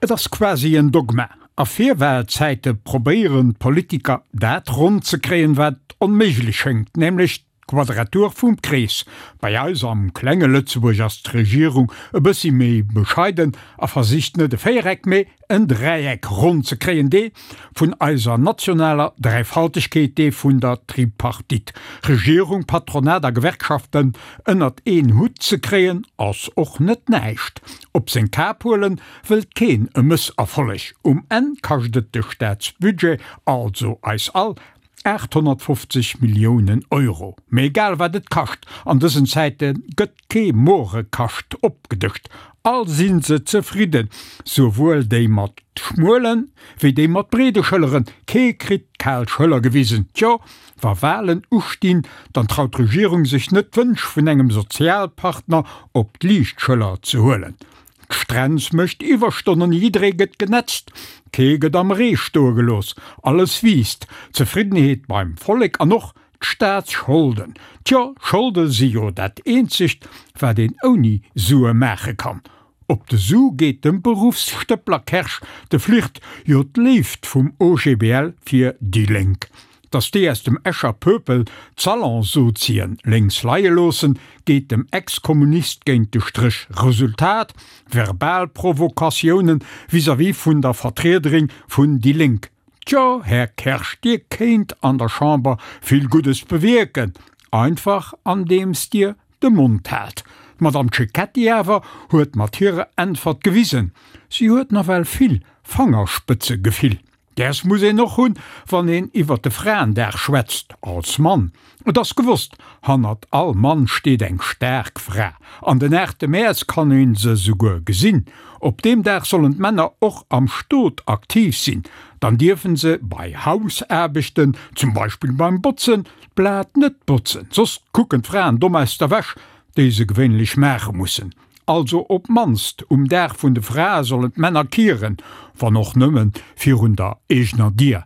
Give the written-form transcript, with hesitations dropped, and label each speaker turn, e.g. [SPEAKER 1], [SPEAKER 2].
[SPEAKER 1] Et ass quasi en Dogma. A Virwahlzäite probéieren d'Politiker dat ronn ze kréien, wat onméiglech schéngt, nämlech d'Quadratur vum Krees. Bei eis am klenge Lëtzebuerg ass d'Regierung e bëssi méi bescheiden a versicht net e Véiereck, mee en Dräieck ronn ze kréien, dee vun eiser nationaler Dräifaltegkeet, dee vun der Tripartite. Regierung, Patronat a Gewerkschaften ënnert een Hutt ze kréien, ass och net näischt. Op seng Kap huelen wëllt keen e Mësserfolleg. Um Enn kascht et de Staatsbudget, also eis all, 850 Milliounen Euro. Mee egal wat et kascht, an dësen Zäite gëtt kee Morekascht opgedëscht. All si se zefridden, souwuel déi mat schmuelen, wéi déi mat breede Schëlleren. Kee kritt d'kal Schëller gewisen. Tjo, wa Walen ustinn, dann traut d'Regierung sech net d'Wënsch vun engem Sozialpartner op d'liicht Schëller ze huelen. D'Strenz mécht Iwwerstonnen, jidderee gëtt genetzt, kee gëtt am Ree stoe gelooss, alles wiisst, d'Zefriddenheet beim Vollek an och d'Staatsscholden. Tjo, Scholde si jo dat eenzegt, wat een ouni Sue maache kann. Op de Su geet dem Beruffsstëppler Kersch de Flirt, jo d'Léift vum OGBL fir déi Lénk. Datt déi aus dem Escher Pöpel d'Salonsozien lénks leie loossen, geet dem Ex-Kommunist géint de Stréch. Resultat, verbal Provokatiounen vis-à-vis vun der Vertriederin vun déi Lénk. Tjo, Här Kersch, Dir kéint an der Chamber vill Guddes bewierken, einfach andeems Dir de Mond haalt. D'Madame Cecchetti awer huet mat hirer Äntwert gewisen, si huet nawell vill Fangerspëtzegefill. Däers muss een och hunn, wann een iwwert de Fraendag schwätzt, als Mann. Et ass gewosst, hannert all Mann steet eng staark Fra. An den 8 Mäerz kann een se souguer gesinn. Op deem Dag sollen d'Männer och am Stot aktiv sinn. Dann dierfen se bei Hausaarbechten, zum Beispill beim Botzen, d'Blat net botzen, soss kucken d'Fraen domm aus der Wäsch, déi se gewéinlech maache mussen. Also op d'mannst um Dag vun de Frae sollen d'Männer kieren, wann och nëmme virun der eegener Dier.